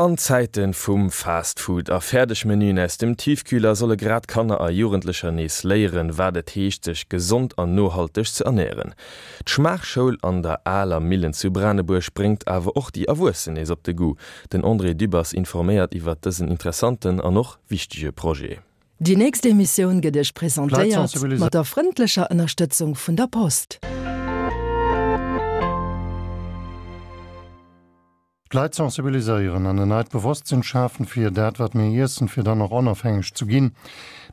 An Zäite vum Fast Food a Fäerdegmenüen aus dem Tiefkühler solle grad Kanner a Jugendlecher nees léieren, wat et heescht, sech gesond an nohalteg ze ernären. D'Schmaachschoul an der Aler Millen zu Branebuerg bréngt awer och déi Erwuessen nees op de Goût. Den André Dübbers informéiert iwwert dësen interessanten an och wichtege Projet. Déi nächst Emissioun gëtt Iech presentéiert mat der frëndlecher Ënnerstëtzung vun der Post. D'Leit sensibiliséieren an en neit Bewosstsinn schafen fir dat wat mir iessen, fir dann och onofhängeg zu ginn.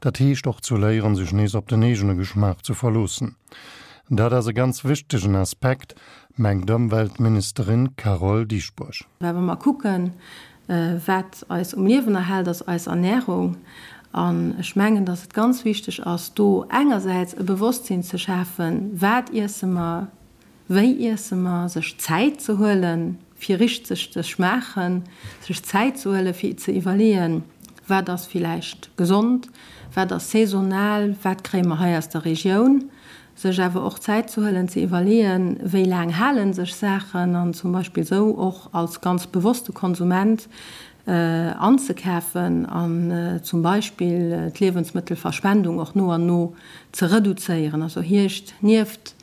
Dat heescht och zu léieren sech nees op den eegene Geschmaach zu verloossen. Dat ass e ganz wichtegen Aspekt, mengt d'Ëmweltministerin Carole Dieschbourg. Well wa mer kucken, wat eis um Liewen erhält, ass eis Ernährung. An ech mengen, dass et ganz wichteg ass, do engersäits e Bewosstsinn ze schafen, Wat iesse mer? Wéi iesse mer? Sech Zäit ze huelen, fir richteg ze schmaachen, sech Zäit ze huelen, fir ze iwwerleeën, Wat ass villäicht gesond? Wat ass saisonal? Wat kréie mer hei aus der Regioun? Sech awer och Zäit ze huelen, ze iwwerleeën, wéi laang hale sech Saachen an zum Beispill esou och als ganz bewosste Konsument anzekafen an zum Beispill d'Liewensmëttelverschwendung och no an no ze reduzéieren. Also hierscht nieft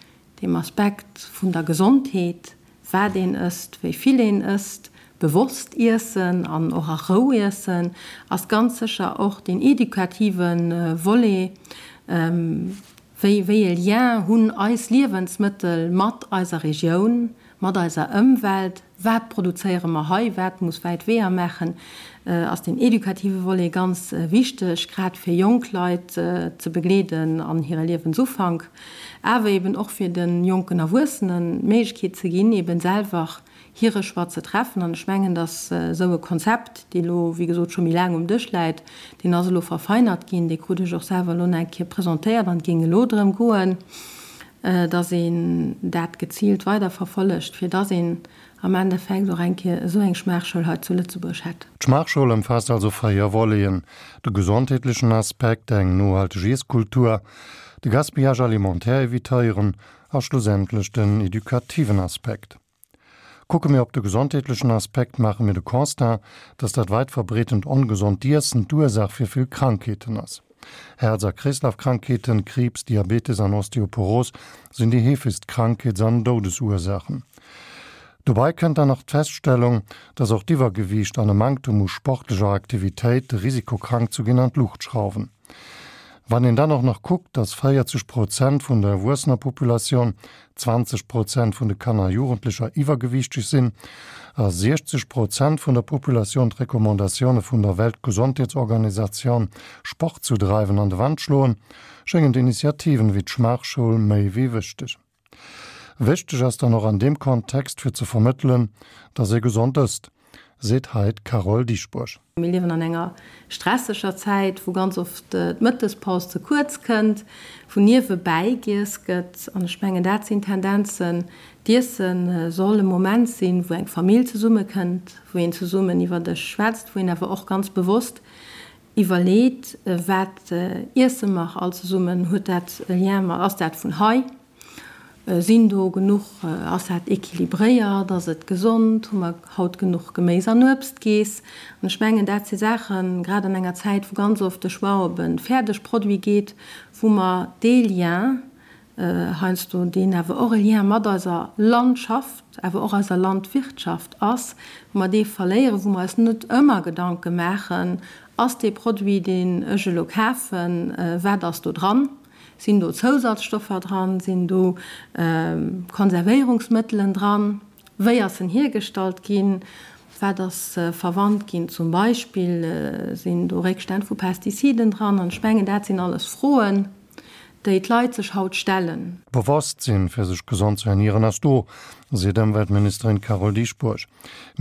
Deem Aspekt vun der Gesondheet, wat een ësst, wéi vill een ësst, bewosst iessen an och a Rou iessen, ass ganz sécher och deen edukative Volet, wéi wéi e Lien hunn eis Liewensmëttel mat eiser Regioun, mat eiser Ëmwelt, Wat produzéiere mer hei, wat muss wäit Weeër maachen, ass deen edukative Volet ganz wichteg, grad fir jonk Leit ze begleeden an hire Liewensufank, awer eben och fir de jonken Erwuessenen d'Méiglechkeet ze ginn, eben selwer hire Choix ze treffen. An ech mengen, datt esou e Konzept, dee lo, wéi gesot, scho méi laang um Dësch läit, deen ass elo verfeinert ginn, dee krut ech och selwer elo nach eng Kéier presentéiert an et géing elo drëm goen, dass een dat geziilt weiderverfollegt, fir dass een am Endeffekt och eng Kéier esou eng Schmaachschoul hei zu Lëtzebuerg hätt. D'Schmaachschoul ëmfaasst also 4 Voleten, de gesondheetlechen Aspekt, eng nohalteg Iesskultur, de Gaspillage alimentaire evitéieren a schlussendlech den edukativen Aspekt. Kucke mir op de gesondheetlechen Aspekt, maache mir de Constat, dass dat weit verbreetent ongesond Iessen d'Ursaach fir vill Krankheeten ass. Häerz a Kreeslafkrankheeten, Kriibs, Diabetes an Osteoporos sinn déi heefegst Krankheets an Doudesursaachen. Dobei kënnt dann nach d'Feststellung, dass och d'Iwwergewiicht an e Manktem u sportlecher Aktivitéit de Risiko krank zu ginn an d'Luucht schrauwen. Wann een dann och nach kuckt, dass 40 Prozent vun der erwuessener Populatioun, 20 Prozent vun de Kanner a Jugendlecher iwwergewiichteg sinn a 60 Prozent vun der Populatioun d'Recommandatioune vun der Weltgesondheetsorganisatioun, Sport zu dreiwen, an de Wand schloen, schéngen d'Initiativen ewéi d'Schmaachschoul méi wéi wichteg. Wichteg ass dann och an deem Kontext fir ze vermëttelen, dass ee gesond ësst, seet hei d'Carole Dieschbourg. Mir liewen an enger stresseger Zäit, wou ganz oft d'Mëttespaus ze kuerz kënnt, wou niewebäi giess gëtt. An ech mengen, dat sinn Tendenzen. D'Iesse soll e Moment sinn, wou eng Famill zesummekënnt, wou een zesummen iwwer Dësch schwätzt, wou een awer och ganz bewosst iwwerleet, Wat iesse mer all zesummen? Huet dat e Lien mat, ass dat vun hei? Sinn do genuch, ass dat équilibréiert, ass et gesond, hu mer haut genuch Geméis an Uebst geess? An ech mengen, dat si Saachen, grad an enger Zäit, wou ganz oft de Choix op e Fäerdegproduit geet, wou mer dee Lien heiansdo, deen awer och e Lien mat eiser Landschaft, awer och eiser Landwirtschaft ass, wou mer dee verléieren, wou mer eis net ëmmer Gedanke maachen, Ass dee Produit, deen ech elo kafen, wat ass do dran? Sinn do Zousatzstoffer dran? Sinn do Konservéierungsmëttelen dran? Wéi ass en hiergestallt ginn? Wat ass verwannt ginn? Zum Beispill, sinn do Réckstänn vu Pestiziden dran? An ech mengen, dat sinn alles Froen, déi d'Leit sech haut stellen. D'Bewosstsinn, fir sech gesond ze ernieren, ass do, seet Ëmweltministerin Carole Dieschbourg.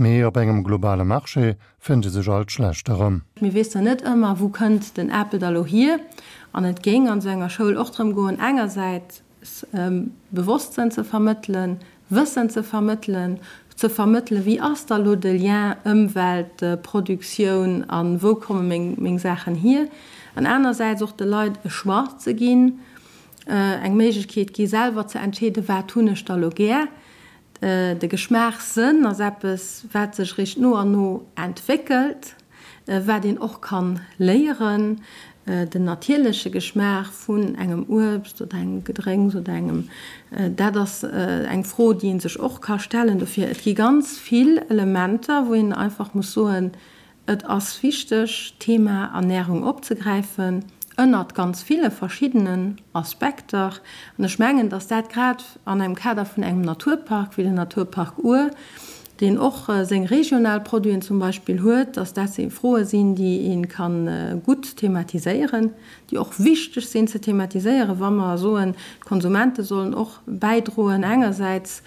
Mee op engem globale Marché fënnt ee sech alt schlecht erëm. Mir wéssen net ëmmer, wou kënnt den Apel da lo hier. An et géing an esou enger Schoul och drëm goen, engersäits Bewosstsënn ze vermëttelen, Wëssen ze vermëttelen, ze vermëttelen, wéi ass da lo de Lien Ëmwelt, Produktioun a wou komme meng Saachen hier, an anersäits och de Leit e Choix ze ginn, eng Méiglechkeet gi selwer ze entscheeden, wat hunn ech da lo gär. De Geschmaachssënn ass eppes, wat sech eréischt no an no entwéckelt, wat een och kann léieren. Den natierleche Geschmaach vun engem Uebst oder engem Gedrénks oder engem, dat ass eng Fro, déi ee sech och ka stellen. Dofir, et gi ganz vill Elementer, wou een einfach muss soen, Et ass wichteg, d'Thema Ernährung opzegräifen, ënnert ganz ville verschiddenen Aspekter. An ech mengen, dass dat grad an engem Kader vun engem Naturpark wéi den Naturpark Our, deen och seng regional Produiten zum Beispill huet, dass dat Froe sinn, déi ee ka gutt thematiséieren, déi och wichteg sinn ze thematiséieren, wa mer soen, d'Konsumente sollen och bäidroen engersäits,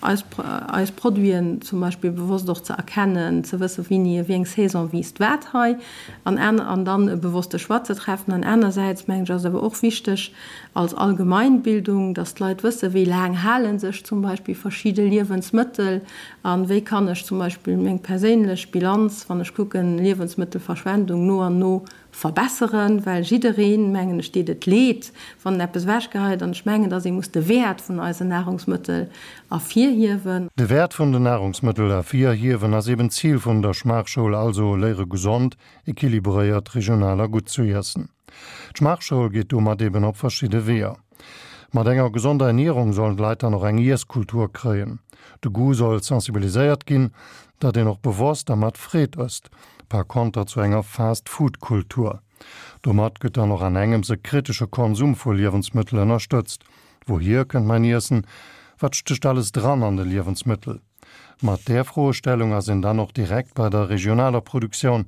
eis eis Produiten zum Beispill bewosst och ze erkennen, ze wëssen, wéini, wéi eng Saison wiisst wat hei, an aner an dann e bewosste Choix ze treffen. An anersäits, mengen ech, ass et awer och wichteg als Allgemeinbildung, dass d'Leit wëssen, wéi laang hale sech zum Beispill verschidde Liewensmëttel a wéi kann ech zum Beispill meng perséinlech Bilanz, wann ech kucken, Liewensmëttelverschwendung no an no verbesseren, well jiddereen, mengen ech, deet et leed, wann en eppes ewechgeheit. An ech mengen, dass ee muss de Wäert vun eisen Nahrungsmëttel ervirhiewen. De Wäert vun den Nahrungsmëttel ervirhiewen ass eben d'Zil vun der Schmaachschoul, also léiere gesond, equilibréiert, regional a gutt zu iessen. D'Schmaachschoul geet domat eben op verschidde Weeër. Mat enger gesonder Ernierung sollen d'Leit dann och eng Iesskultur kréien. De Goût soll sensibiliséiert ginn, datt een och bewosst a mat Freed ësst, par konter zu enger Fast-Food-Kultur. Domat gëtt dann och an engems e kritesche Konsum vu Liewensmëttel ënnerstëtzt. Wouhier kënnt mäin Iessen? Wat stécht alles dran an de Liewensmëttel? Mat där Froestellung ass een dann och direkt bei der regionaler Produktioun,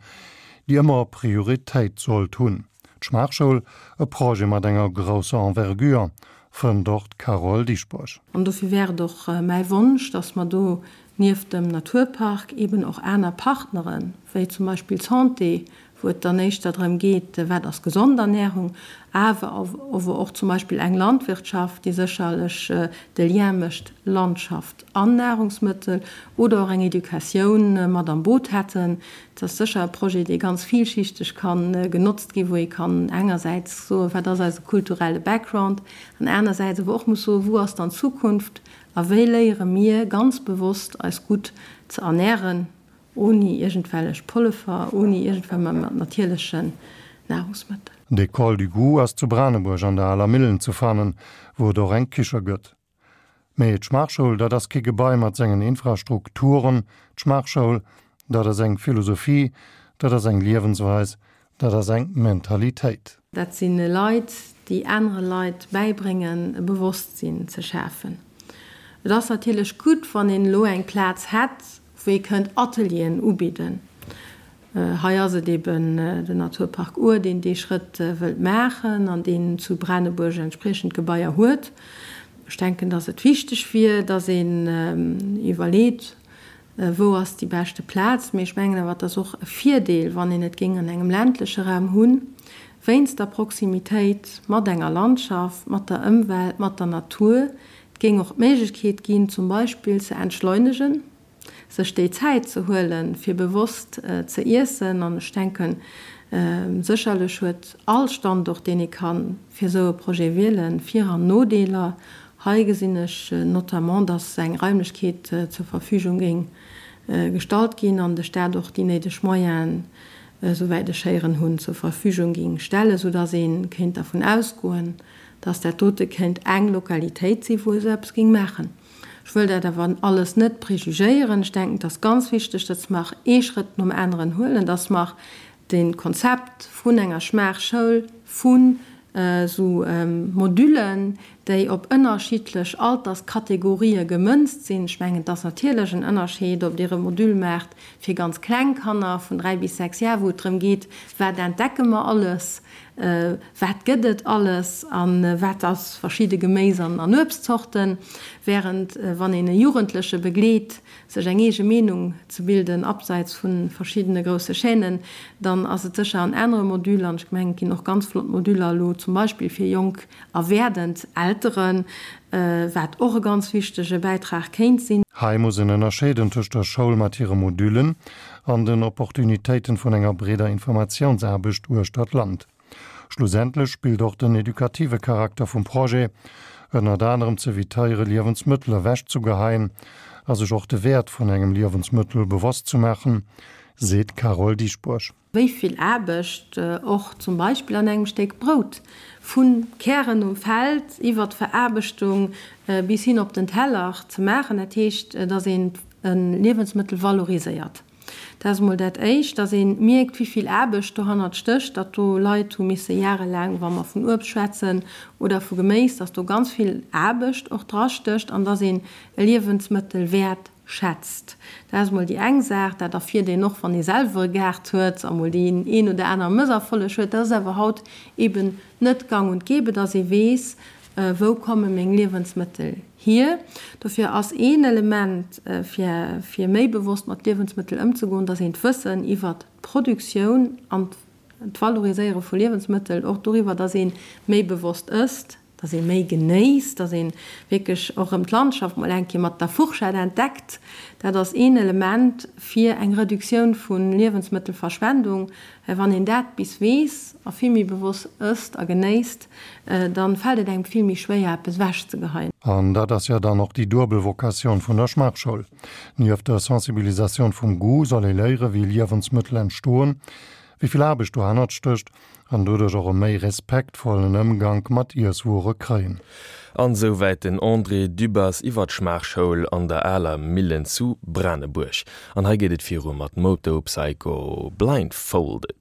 déi ëmmer Prioritéit sollt hunn. D'Schmaachschoul, e Projet mat enger grousser Envergure, fënnt och d'Carole Dieschbourg. An dofir wär et och mäi Wonsch, dass mer do nieft dem Naturpark eben och aner Partneren, wéi zum Beispill d'Santé, wou et dann éischter drëm geet, wat ass gesond Ernährung, awer ower och zum Beispill eng Landwirtschaft, déi sécherlech de Lien mécht Landschaft an Nahrungsmëttel, oder och eng Educatioun mat am Boot hätten. Et ass sécher e Projet, dee ganz villschichteg ka genotzt ginn, wou ee kann engersäits soen, wat ass eise kulturelle Background, an anersäits awer och muss soen, wou ass dann d'Zukunft a wéi léiere mir ganz bewosst eis gutt ze ernähren. Ouni iergendwellech Pollefer, ouni iergendwell mä mat natierlechen Nahrungsmëttel. D'École du Goût ass zu Branebuerg an der Aler Millen ze fannen, wou et och eng Kiche gëtt. Mee d'Schmaachschoul, dat ass kee Gebai mat sengen Infrastrukturen. D'Schmaachschoul, dat ass eng Philosophie, dat ass eng Liewensweis, dat ass eng Mentalitéit. Dat si Leit, déi anere Leit bäibréngen, e Bewosstsinn ze schafen. Et ass natierlech gutt, wann een elo eng Plaz hätt, wou ee kënnt Atelieren ubidden. Hei ass et eben den Naturpark Our, deen dee Schrëtt wëllt maachen an deen zu Branebuerg entspriechend Gebaier huet. Ech denken, dass et wichteg wier, dass een iwwerleet, wou ass déi beschte Plaz. Mee ech mengen awer, et ass och e Virdeel, wann een et géing an engem ländleche Raum hunn, wéinst der Proximitéit mat enger Landschaft, mat der Ëmwelt, mat der Natur, Et géing och d'Méiglechkeet ginn, zum Beispill ze entschleunegen, sech déi Zäit ze huelen, fir bewosst ze iessen. An ech denken, sécherlech huet all Standort, deen ee ka fir esou e Projet wielen, Vir an Nodeeler. Hei gesinn ech notamment, dass eng Raimlechkeet zur Verfügung géing gestallt ginn an de Stat och déi néideg Moyenen, esouwäit ech héieren hunn, zur Verfügung géing stellen, soudass ee kéint dervun ausgoen, dass dat dote kéint eng Lokalitéit sinn, wou ee sou eppes géing maachen. Ech wëll dat awer alles net prejugéieren. Ech denken, et ass ganz wichteg, dass mer ee Schrëtt nom aneren huelen, dass mer de Konzept vun enger Schmaachschoul, vun esou Modüllen, déi op ënnerschiddlech Alterskategorië gemënzt sinn, ech mengen, et ass natierlech en Ënnerscheed, ob Dir e Modüll maacht fir ganz kleng Kanner vun 3 bis 6 Jar, wou et drëm geet, wat entdecke mer alles, Wat gëtt et alles a wat ass verschidde Geméis an Uebstzorten? Während wann een e Jugendleche begleet, sech eng eege Meenung ze bilden, abseits vu verschiddene grousse Chaînen, dann ass et sécher en anere Module. An ech mengen, et ginn och ganz flott Moduler elo zum Beispill fir jonk a werdend Elteren, wat och e ganz wichtege Bäitrag kéint sinn. Hei muss een ënnerscheeden tëscht der Schoul mat hire Modüllen an den Opportunitéiten vun enger breeder Informatiounsaarbecht uechter d'Land. Schlussendlech spillt och den edukative Charakter vum Projet. Ënnert anerem z'evitéiere Liewensmëttel ewechzegeheien a sech och de Wäert vun engem Liewensmëttel bewosst ze maachen, seet d'Carole Dieschbourg. Wéi vill Aarbecht och zum Beispill an engem Stéck Brout, vu Kären um Feld iwwer d'Veraarbechtung bis hin op den Teller ze maachen. Dat heescht, dass een e Liewensmëttel valoriséiert. Dat ass emol dat Éischt, dass ee mierkt, wéi vill Aarbecht dohannert stécht, datt do Leit hu misse jarelaang, wa mer vun Uebst schwätzen oder vu Geméis, dass do ganz vill Aarbecht och drastécht an dass een e Liewensmëttel wäert schätzt. Dat ass emol déi eng Saach. Dat erfiert een och, wann ee selwer e Gaart huet a mol deen een oder aner Mësserfolleg huet. Dat ass awer haut eben net gang und gäbe, dass ee weess, Wou komme meng Liewensmëttel hier? Dofir ass een Element, fir fir méi bewosst mat Liewensmëttel ëmzegoen, dass een d'Wëssen iwwert d'Produktioun an d'Valoriséiere vu Liewensmëttel, och doriwwer, dass ee méi bewosst ësst, dass ee méi genéisst, dass ee wierklech och erëm d'Landschaft mol eng Kéier mat der Fourchette entdeckt. Dat ass een Element fir eng Reduktioun vu Liewensmëttelverschwendung. Well wann een dat bis weess a vill méi bewosst ësst a genéisst, dann fält et engem vill méi schwéier eppes ewech ze geheien. An dat ass jo dann och déi duebel Vocatioun vun der Schmaachschoul. Nieft der Sensibilisatioun vum Goût soll ee léiere wéi Liewensmëttel entstoen, wéi vill Aarbecht dohannert stécht an doduerch och e méi respektvollen Ëmgank mat Iesswuere kréien. An esouwäit den André Dübbers iwwer d'Schmaachschoul an der aler Millen zu Branebuerg. An hei geet et viru mat Moto Psycho Blindfolded.